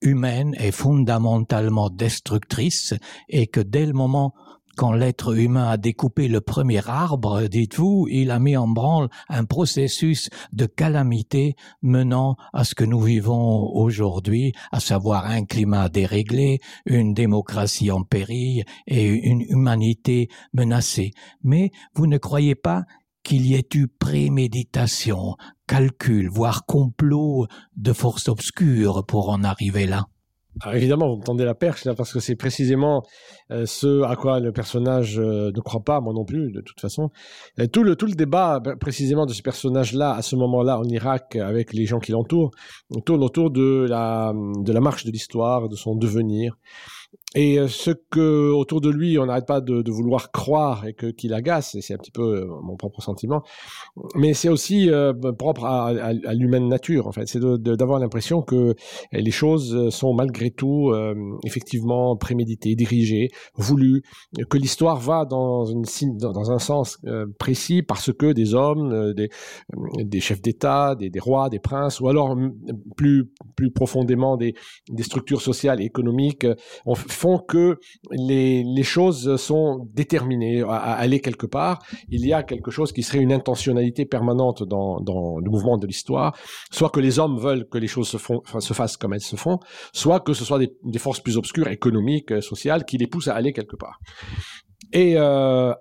E: humaine est fondamentalement destructrice et que dès le moment quand l'être humain a découpé le premier arbre, dites-vous, il a mis en branle un processus de calamité menant à ce que nous vivons aujourd'hui, à savoir un climat déréglé, une démocratie en péril et une humanité menacée. Mais vous ne croyez pas qu'il y ait eu préméditation, calcul, voire complot de forces obscures pour en arriver là?
D: Alors évidemment, vous me tendez la perche là, parce que c'est précisément ce à quoi le personnage ne croit pas, moi non plus, de toute façon. Tout le débat précisément de ce personnage-là, à ce moment-là, en Irak, avec les gens qui l'entourent, tourne autour de la marche de l'histoire, de son devenir. Et ce que autour de lui on n'arrête pas de vouloir croire et qu'il agace, et c'est un petit peu mon propre sentiment, mais c'est aussi propre à l'humaine nature en fait, c'est d'avoir l'impression que les choses sont malgré tout effectivement préméditées, dirigées, voulues, que l'histoire va dans un sens précis parce que des hommes, des chefs d'État, des rois, des princes, ou alors plus profondément des structures sociales et économiques font que les choses sont déterminées à aller quelque part. Il y a quelque chose qui serait une intentionnalité permanente dans le mouvement de l'histoire, soit que les hommes veulent que les choses se fassent comme elles se font, soit que ce soit des forces plus obscures, économiques, sociales, qui les poussent à aller quelque part. Et à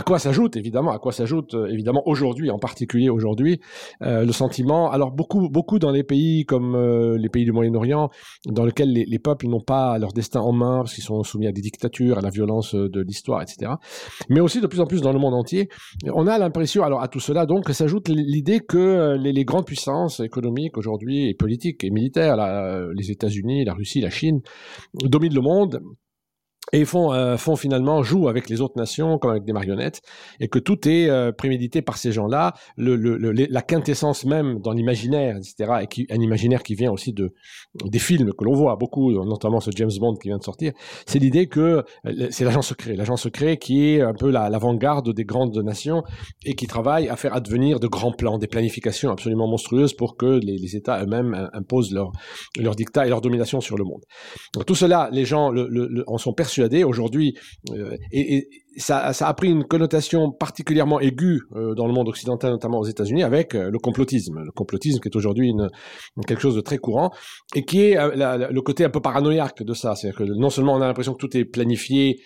D: quoi s'ajoute évidemment aujourd'hui, en particulier aujourd'hui, le sentiment, alors beaucoup dans les pays comme les pays du Moyen-Orient, dans lesquels les peuples n'ont pas leur destin en main, parce qu'ils sont soumis à des dictatures, à la violence de l'histoire, etc. Mais aussi de plus en plus dans le monde entier, on a l'impression, alors à tout cela donc, s'ajoute l'idée que les grandes puissances économiques aujourd'hui, et politiques et militaires, les États-Unis, la Russie, la Chine, dominent le monde, et font finalement, jouent avec les autres nations comme avec des marionnettes, et que tout est prémédité par ces gens-là, la quintessence même dans l'imaginaire, etc., et un imaginaire qui vient aussi des films que l'on voit beaucoup, notamment ce James Bond qui vient de sortir, c'est l'idée que c'est l'agent secret qui est un peu l'avant-garde des grandes nations, et qui travaille à faire advenir de grands plans, des planifications absolument monstrueuses pour que les États eux-mêmes imposent leur dictat et leur domination sur le monde. Donc tout cela, les gens en sont persuadés aujourd'hui, et ça a pris une connotation particulièrement aiguë dans le monde occidental, notamment aux États-Unis, avec le complotisme qui est aujourd'hui quelque chose de très courant, et qui est le côté un peu paranoïaque de ça. C'est-à-dire que non seulement on a l'impression que tout est planifié,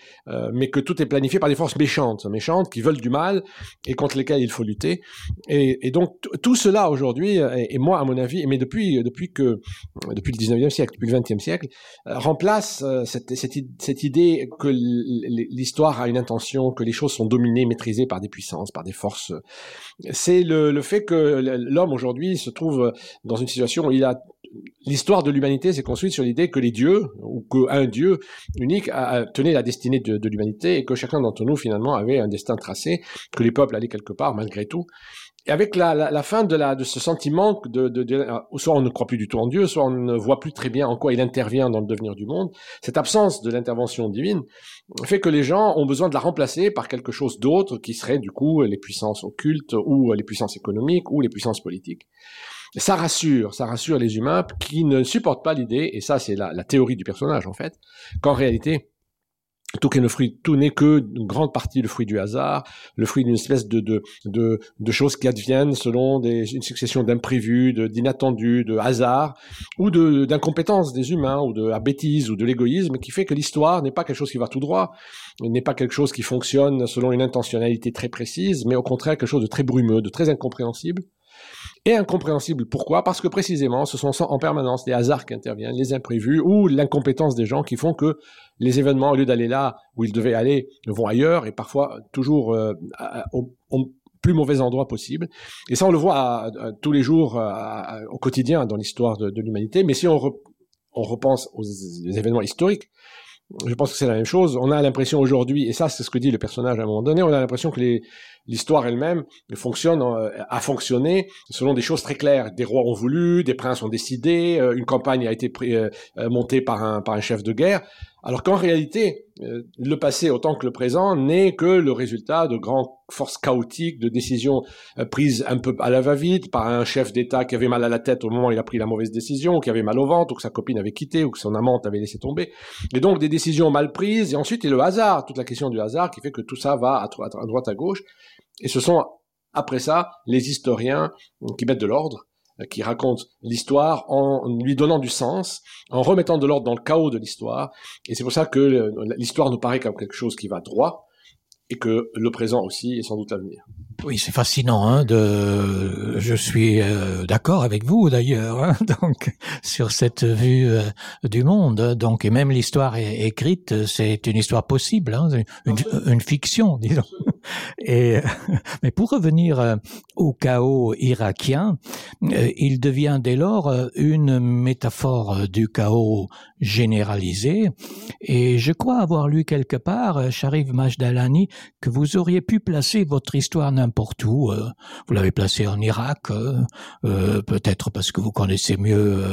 D: mais que tout est planifié par des forces méchantes qui veulent du mal et contre lesquelles il faut lutter. Et donc tout cela aujourd'hui, et moi à mon avis, mais depuis le 19e siècle, depuis le 20e siècle, remplace cette idée que l'histoire a une intention, que les choses sont dominées, maîtrisées par des puissances, par des forces. C'est le fait que l'homme aujourd'hui se trouve dans une situation où l'histoire de l'humanité s'est construite sur l'idée que les dieux, ou qu'un dieu unique tenait la destinée de l'humanité, et que chacun d'entre nous finalement avait un destin tracé, que les peuples allaient quelque part malgré tout. Et avec la fin de ce sentiment soit on ne croit plus du tout en Dieu, soit on ne voit plus très bien en quoi il intervient dans le devenir du monde, cette absence de l'intervention divine fait que les gens ont besoin de la remplacer par quelque chose d'autre qui serait du coup les puissances occultes, ou les puissances économiques, ou les puissances politiques. Ça rassure les humains qui ne supportent pas l'idée, et ça c'est la théorie du personnage en fait, qu'en réalité tout n'est que une grande partie le fruit du hasard, le fruit d'une espèce de choses qui adviennent selon une succession d'imprévus, d'inattendus, de hasards, ou d'incompétence des humains, ou de la bêtise, ou de l'égoïsme, qui fait que l'histoire n'est pas quelque chose qui va tout droit, n'est pas quelque chose qui fonctionne selon une intentionnalité très précise, mais au contraire quelque chose de très brumeux, de très incompréhensible. Et incompréhensible, pourquoi ? Parce que précisément, ce sont en permanence les hasards qui interviennent, les imprévus, ou l'incompétence des gens qui font que les événements, au lieu d'aller là où ils devaient aller, vont ailleurs, et parfois toujours au plus mauvais endroit possible. Et ça, on le voit tous les jours, au quotidien, dans l'histoire de l'humanité. Mais si on repense aux événements historiques, je pense que c'est la même chose. On a l'impression aujourd'hui, et ça c'est ce que dit le personnage à un moment donné, on a l'impression que l'histoire elle-même a fonctionné selon des choses très claires. Des rois ont voulu, des princes ont décidé, une campagne a été montée par un chef de guerre, alors qu'en réalité, le passé autant que le présent n'est que le résultat de grandes forces chaotiques, de décisions prises un peu à la va-vite par un chef d'État qui avait mal à la tête au moment où il a pris la mauvaise décision, ou qui avait mal au ventre, ou que sa copine avait quitté, ou que son amante avait laissé tomber. Et donc des décisions mal prises, et ensuite il y a le hasard, toute la question du hasard qui fait que tout ça va à droite à gauche. Et ce sont, après ça, les historiens qui mettent de l'ordre, qui racontent l'histoire en lui donnant du sens, en remettant de l'ordre dans le chaos de l'histoire. Et c'est pour ça que l'histoire nous paraît comme quelque chose qui va droit, et que le présent aussi est sans doute l'avenir.
E: Oui, c'est fascinant. Je suis d'accord avec vous d'ailleurs, donc sur cette vue du monde. Donc, et même l'histoire écrite, c'est une histoire possible, une fiction, disons. Mais pour revenir au chaos irakien, il devient dès lors une métaphore du chaos généralisé. Et je crois avoir lu quelque part, Sharif Majdalani, que vous auriez pu placer votre histoire n'importe où. Vous l'avez placée en Irak, peut-être parce que vous connaissez mieux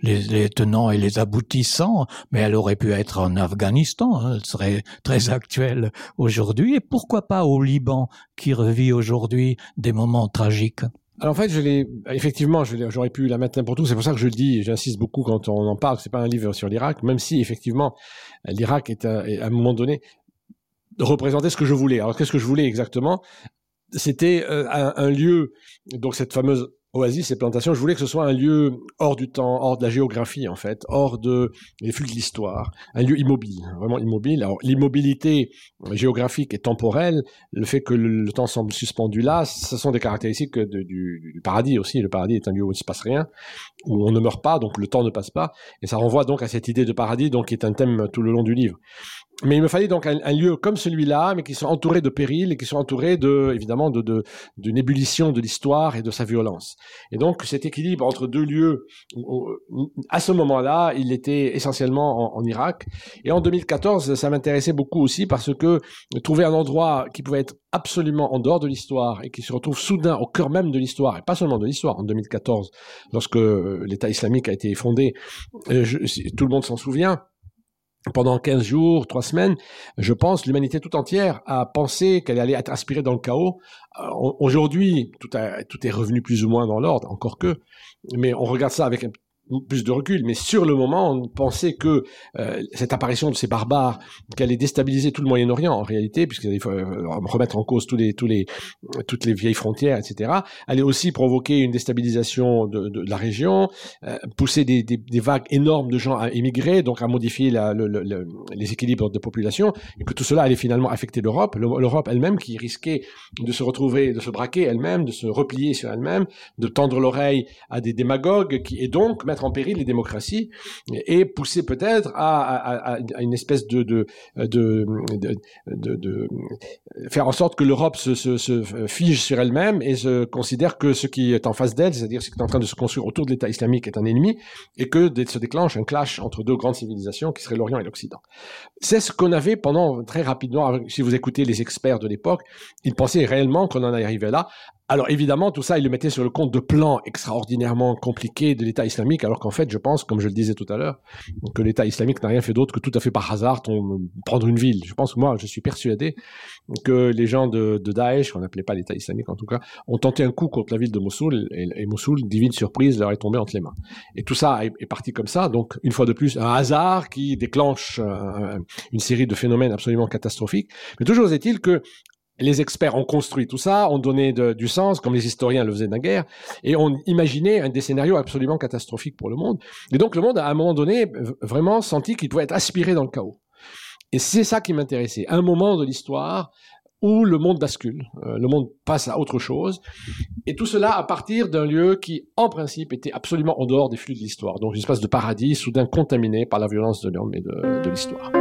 E: les tenants et les aboutissants, mais elle aurait pu être en Afghanistan, hein, elle serait très actuelle aujourd'hui. Et pourquoi pas au Liban, qui revit aujourd'hui des moments tragiques?
D: Alors en fait, j'aurais pu la mettre n'importe où. C'est pour ça que je le dis, j'insiste beaucoup quand on en parle. C'est pas un livre sur l'Irak, même si effectivement l'Irak est à un moment donné représentait ce que je voulais. Alors qu'est-ce que je voulais exactement? C'était un lieu, donc cette fameuse oasis, ces plantations, je voulais que ce soit un lieu hors du temps, hors de la géographie en fait, hors des flux de l'histoire, un lieu immobile, vraiment immobile. Alors l'immobilité géographique et temporelle, le fait que le temps semble suspendu là, ce sont des caractéristiques du paradis aussi. Le paradis est un lieu où il ne se passe rien, où on ne meurt pas, donc le temps ne passe pas, et ça renvoie donc à cette idée de paradis, donc qui est un thème tout le long du livre. Mais il me fallait donc un lieu comme celui-là, mais qui soit entouré de périls et qui soit entouré évidemment d'une ébullition de l'histoire et de sa violence. Et donc cet équilibre entre deux lieux, à ce moment-là, il était essentiellement en Irak. Et en 2014, ça m'intéressait beaucoup aussi parce que trouver un endroit qui pouvait être absolument en dehors de l'histoire et qui se retrouve soudain au cœur même de l'histoire, et pas seulement de l'histoire, en 2014, lorsque l'État islamique a été fondé, tout le monde s'en souvient. Pendant 15 jours, 3 semaines, je pense, l'humanité tout entière a pensé qu'elle allait être aspirée dans le chaos. Aujourd'hui, tout est revenu plus ou moins dans l'ordre, encore que, mais on regarde ça avec plus de recul, mais sur le moment, on pensait que cette apparition de ces barbares, qu'elle allait déstabiliser tout le Moyen-Orient en réalité, puisqu'il fallait remettre en cause toutes les vieilles frontières, etc., allait aussi provoquer une déstabilisation de la région, pousser des vagues énormes de gens à émigrer, donc à modifier les équilibres de population, et que tout cela allait finalement affecter l'Europe elle-même qui risquait de se retrouver, de se braquer elle-même, de se replier sur elle-même, de tendre l'oreille à des démagogues et donc mettre en péril les démocraties et pousser peut-être à une espèce de faire en sorte que l'Europe se fige sur elle-même et se considère que ce qui est en face d'elle, c'est-à-dire ce qui est en train de se construire autour de l'État islamique est un ennemi et que se déclenche un clash entre deux grandes civilisations qui seraient l'Orient et l'Occident. C'est ce qu'on avait pendant très rapidement, si vous écoutez les experts de l'époque, ils pensaient réellement qu'on en arrivait là. Alors évidemment, tout ça, il le mettait sur le compte de plans extraordinairement compliqués de l'État islamique, alors qu'en fait, je pense, comme je le disais tout à l'heure, que l'État islamique n'a rien fait d'autre que tout à fait par hasard prendre une ville. Je pense que moi, je suis persuadé que les gens de Daesh, qu'on n'appelait pas l'État islamique en tout cas, ont tenté un coup contre la ville de Mossoul, et Mossoul, divine surprise, leur est tombé entre les mains. Et tout ça est parti comme ça, donc une fois de plus, un hasard qui déclenche une série de phénomènes absolument catastrophiques. Mais toujours est-il que les experts ont construit tout ça, ont donné du sens, comme les historiens le faisaient naguère, et ont imaginé des scénarios absolument catastrophiques pour le monde. Et donc le monde, à un moment donné, vraiment senti qu'il pouvait être aspiré dans le chaos. Et c'est ça qui m'intéressait. Un moment de l'histoire où le monde bascule, le monde passe à autre chose, et tout cela à partir d'un lieu qui, en principe, était absolument en dehors des flux de l'histoire. Donc une espèce de paradis soudain contaminé par la violence de l'homme et de l'histoire.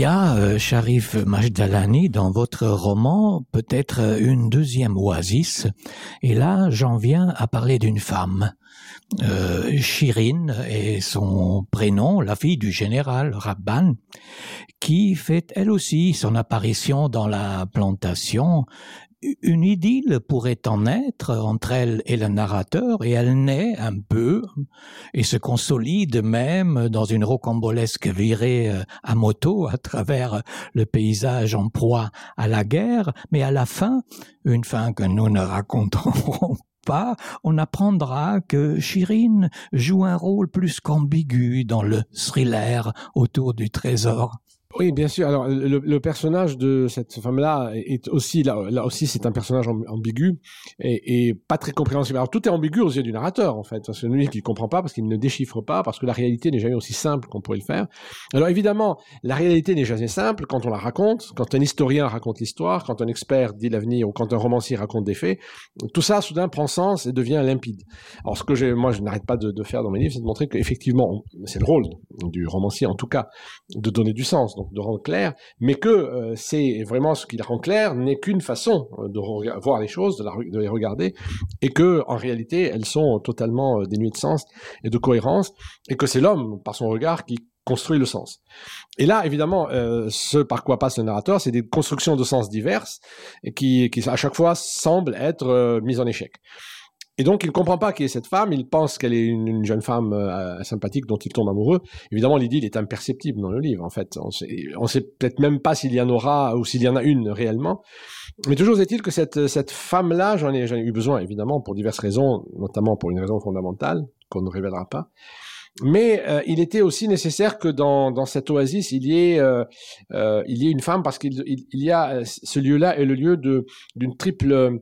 E: y a, Sharif Majdalani, dans votre roman, peut-être une deuxième oasis. Et là, j'en viens à parler d'une femme. Shirin est son prénom, la fille du général Radban, qui fait elle aussi son apparition dans la plantation. Une idylle pourrait en être entre elle et le narrateur, et elle naît un peu et se consolide même dans une rocambolesque virée à moto à travers le paysage en proie à la guerre, mais à la fin, une fin que nous ne raconterons pas, on apprendra que Shirin joue un rôle plus qu'ambigu dans le thriller autour du trésor.
D: Oui, bien sûr. Alors, le personnage de cette femme-là est aussi, là aussi, c'est un personnage ambigu et pas très compréhensible. Alors, tout est ambigu aux yeux du narrateur, en fait. C'est lui qui ne comprend pas parce qu'il ne déchiffre pas, parce que la réalité n'est jamais aussi simple qu'on pourrait le faire. Alors, évidemment, la réalité n'est jamais simple quand on la raconte, quand un historien raconte l'histoire, quand un expert dit l'avenir ou quand un romancier raconte des faits. Tout ça, soudain, prend sens et devient limpide. Alors, ce que moi, je n'arrête pas de faire dans mes livres, c'est de montrer qu'effectivement, c'est le rôle du romancier, en tout cas, de donner du sens. Donc, de rendre clair, mais que c'est vraiment ce qui la rend clair n'est qu'une façon de voir les choses, de les regarder, et que en réalité elles sont totalement dénuées de sens et de cohérence, et que c'est l'homme par son regard qui construit le sens. Et là, évidemment, ce par quoi passe le narrateur, c'est des constructions de sens diverses et qui à chaque fois semblent être mises en échec. Et donc, il ne comprend pas qui est cette femme, il pense qu'elle est une jeune femme sympathique dont il tombe amoureux. Évidemment, l'idylle est imperceptible dans le livre, en fait. On sait peut-être même pas s'il y en aura ou s'il y en a une réellement. Mais toujours est-il que cette femme-là, j'en ai eu besoin, évidemment, pour diverses raisons, notamment pour une raison fondamentale, qu'on ne révélera pas. Mais il était aussi nécessaire que dans cette oasis il y ait une femme, parce qu'il y a ce lieu-là est le lieu d'une triple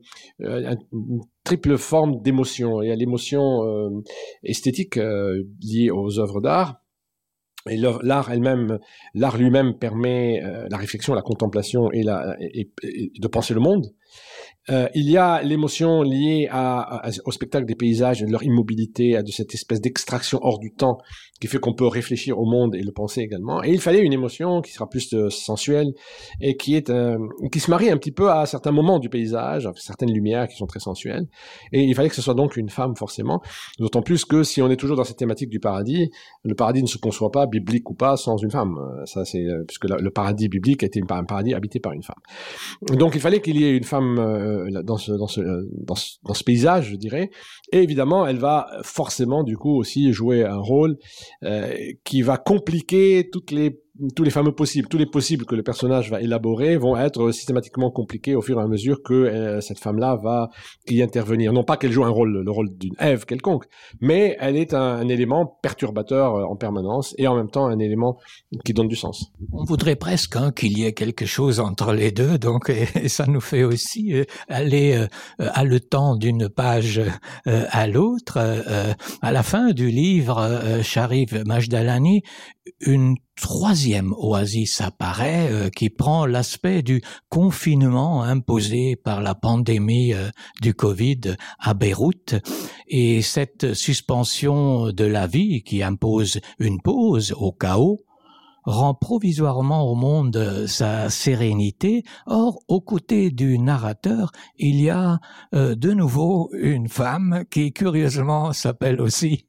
D: forme d'émotion. Il y a l'émotion esthétique liée aux œuvres d'art. Et l'art lui-même permet la réflexion, la contemplation et de penser le monde. Il y a l'émotion liée au spectacle des paysages, de leur immobilité, de cette espèce d'extraction hors du temps qui fait qu'on peut réfléchir au monde et le penser également. Et il fallait une émotion qui sera plus sensuelle et qui se marie un petit peu à certains moments du paysage, à certaines lumières qui sont très sensuelles. Et il fallait que ce soit donc une femme forcément, d'autant plus que si on est toujours dans cette thématique du paradis, le paradis ne se conçoit pas, biblique ou pas, sans une femme. Ça, c'est puisque le paradis biblique était un paradis habité par une femme. Donc il fallait qu'il y ait une femme dans ce paysage, je dirais, et évidemment elle va forcément du coup aussi jouer un rôle qui va compliquer tous les fameux possibles, tous les possibles que le personnage va élaborer vont être systématiquement compliqués au fur et à mesure que cette femme-là va y intervenir. Non pas qu'elle joue le rôle d'une Ève quelconque, mais elle est un élément perturbateur en permanence et en même temps un élément qui donne du sens.
E: On voudrait presque qu'il y ait quelque chose entre les deux, donc et ça nous fait aussi aller haletant d'une page à l'autre. À la fin du livre, Sharif Majdalani, une troisième oasis apparaît qui prend l'aspect du confinement imposé par la pandémie du Covid à Beyrouth, et cette suspension de la vie qui impose une pause au chaos rend provisoirement au monde sa sérénité. Or, aux côtés du narrateur, il y a de nouveau une femme qui, curieusement, s'appelle aussi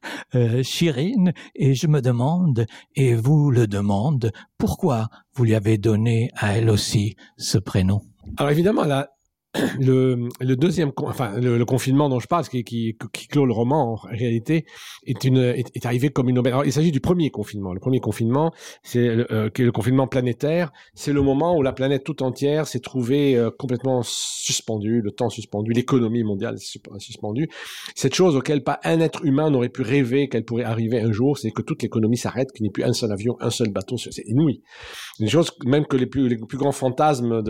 E: Shirin, et je me demande, et vous le demande, pourquoi vous lui avez donné à elle aussi ce prénom?
D: Alors évidemment, le deuxième, le confinement dont je parle, qui clôt le roman, en réalité, est arrivé comme une aubaine. Alors, il s'agit du premier confinement. Le premier confinement, qui est le confinement planétaire. C'est le moment où la planète tout entière s'est trouvée complètement suspendue, le temps suspendu, l'économie mondiale suspendue. Cette chose auquel pas un être humain n'aurait pu rêver qu'elle pourrait arriver un jour, c'est que toute l'économie s'arrête, qu'il n'y ait plus un seul avion, un seul bateau. C'est inouï. Une chose même que les plus grands fantasmes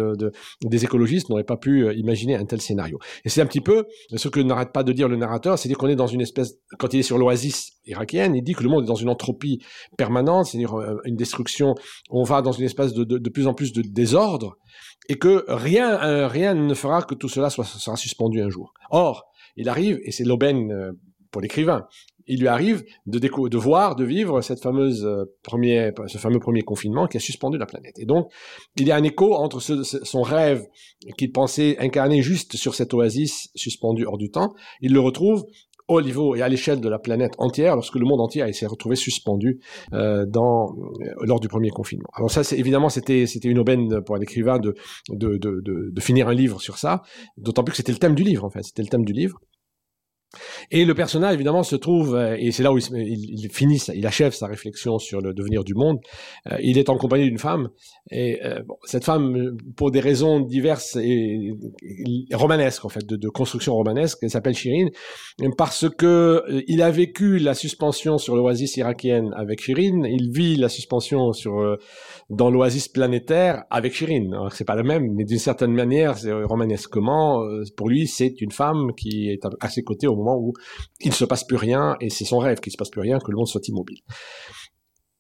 D: des écologistes n'auraient pas pu imaginer un tel scénario. Et c'est un petit peu ce que n'arrête pas de dire le narrateur, c'est-à-dire qu'on est dans une espèce, quand il est sur l'oasis irakienne, il dit que le monde est dans une entropie permanente, c'est-à-dire une destruction, on va dans une espèce de plus en plus de désordre, et que rien ne fera que tout cela sera suspendu un jour. Or, il arrive, et c'est l'aubaine pour l'écrivain, il lui arrive de vivre ce fameux premier confinement qui a suspendu la planète. Et donc, il y a un écho entre son rêve qu'il pensait incarner juste sur cette oasis suspendue hors du temps. Il le retrouve au niveau et à l'échelle de la planète entière, lorsque le monde entier s'est retrouvé suspendu lors du premier confinement. Alors ça, c'était une aubaine pour un écrivain de finir un livre sur ça, d'autant plus que c'était le thème du livre, en fait. C'était le thème du livre. Et le personnage, évidemment, se trouve, et c'est là où il achève sa réflexion sur le devenir du monde. Il est en compagnie d'une femme, et cette femme, pour des raisons diverses et romanesques, en fait, de construction romanesque, elle s'appelle Shirin, parce que il a vécu la suspension sur l'oasis irakienne avec Shirin, il vit la suspension dans l'oasis planétaire avec Shirin. Alors, c'est pas la même, mais d'une certaine manière, c'est romanesquement, pour lui, c'est une femme qui est à ses côtés au moment où il ne se passe plus rien, et c'est son rêve qu'il ne se passe plus rien, que le monde soit immobile.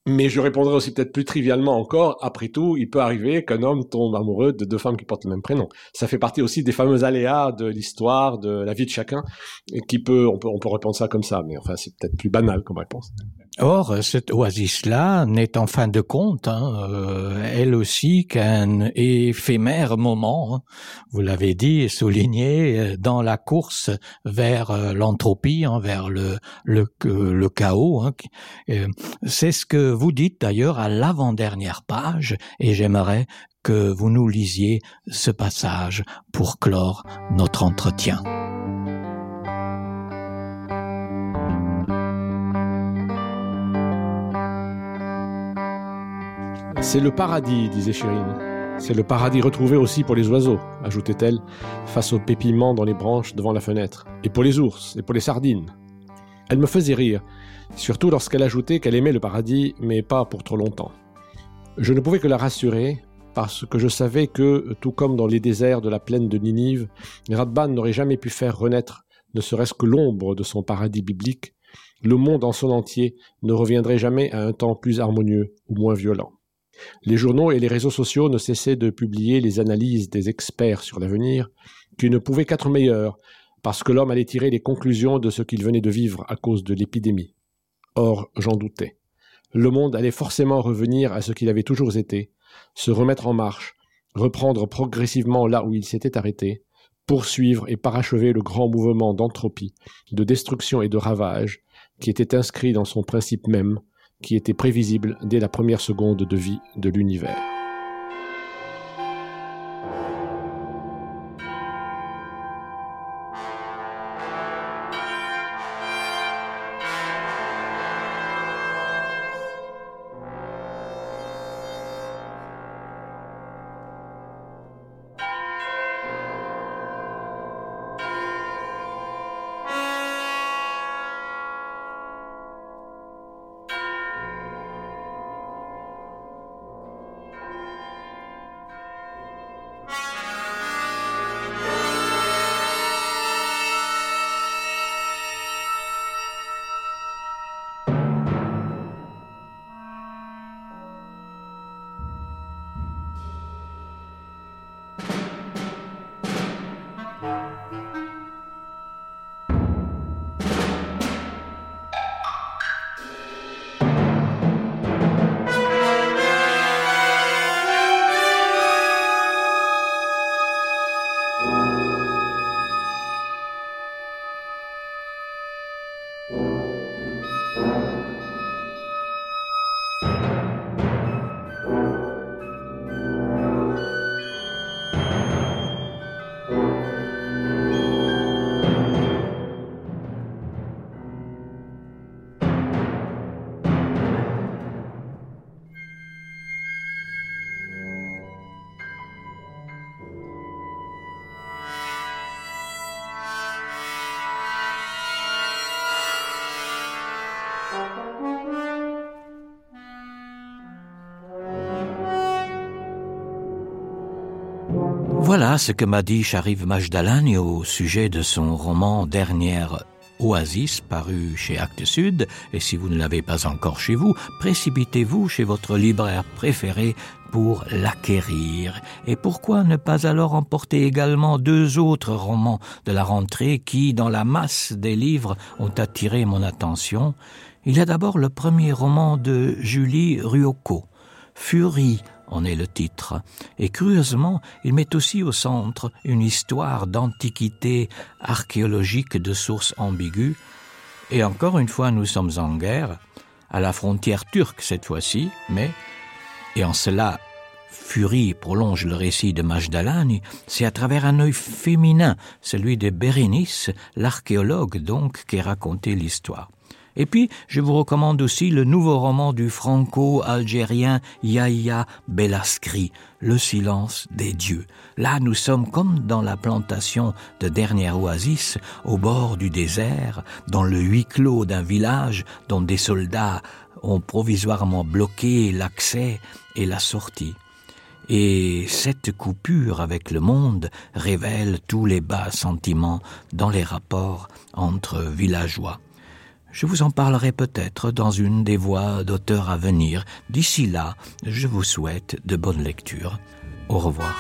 D: Mais je répondrai aussi peut-être plus trivialement encore, après tout, il peut arriver qu'un homme tombe amoureux de deux femmes qui portent le même prénom. Ça fait partie aussi des fameux aléas de l'histoire, de la vie de chacun, et on peut répondre ça comme ça, mais enfin, c'est peut-être plus banal comme réponse.
E: Or, cette oasis-là n'est en fin de compte, elle aussi, qu'un éphémère moment, vous l'avez dit et souligné, dans la course vers l'entropie, vers le chaos. C'est ce que vous dites d'ailleurs à l'avant-dernière page, et j'aimerais que vous nous lisiez ce passage pour clore notre entretien.
D: C'est le paradis, disait Shirin. C'est le paradis retrouvé aussi pour les oiseaux, ajoutait-elle, face aux pépillements dans les branches devant la fenêtre. Et pour les ours, et pour les sardines. Elle me faisait rire, surtout lorsqu'elle ajoutait qu'elle aimait le paradis, mais pas pour trop longtemps. Je ne pouvais que la rassurer, parce que je savais que, tout comme dans les déserts de la plaine de Ninive, Radban n'aurait jamais pu faire renaître, ne serait-ce que l'ombre de son paradis biblique. Le monde en son entier ne reviendrait jamais à un temps plus harmonieux ou moins violent. Les journaux et les réseaux sociaux ne cessaient de publier les analyses des experts sur l'avenir, qui ne pouvaient qu'être meilleures, parce que l'homme allait tirer les conclusions de ce qu'il venait de vivre à cause de l'épidémie. Or, j'en doutais. Le monde allait forcément revenir à ce qu'il avait toujours été, se remettre en marche, reprendre progressivement là où il s'était arrêté, poursuivre et parachever le grand mouvement d'entropie, de destruction et de ravage, qui était inscrit dans son principe même, qui était prévisible dès la première seconde de vie de l'univers.
E: Voilà ce que m'a dit Sharif Majdalani au sujet de son roman Dernière Oasis, paru chez Actes Sud. Et si vous ne l'avez pas encore chez vous, précipitez-vous chez votre libraire préféré pour l'acquérir. Et pourquoi ne pas alors emporter également 2 autres romans de la rentrée qui, dans la masse des livres, ont attiré mon attention? Il y a d'abord le premier roman de Julie Ruocco, Furie en est le titre, et curieusement, il met aussi au centre une histoire d'antiquité archéologique de sources ambiguës. Et encore une fois, nous sommes en guerre, à la frontière turque cette fois-ci, mais, et en cela, Furie prolonge le récit de Majdalani, c'est à travers un œil féminin, celui de Bérénice, l'archéologue donc, qui racontait l'histoire. Et puis, je vous recommande aussi le nouveau roman du franco-algérien Yahya Bellaskri, Le silence des dieux. Là, nous sommes comme dans la plantation de Dernière Oasis, au bord du désert, dans le huis clos d'un village dont des soldats ont provisoirement bloqué l'accès et la sortie. Et cette coupure avec le monde révèle tous les bas sentiments dans les rapports entre villageois. Je vous en parlerai peut-être dans une des voix d'auteurs à venir. D'ici là, je vous souhaite de bonnes lectures. Au revoir.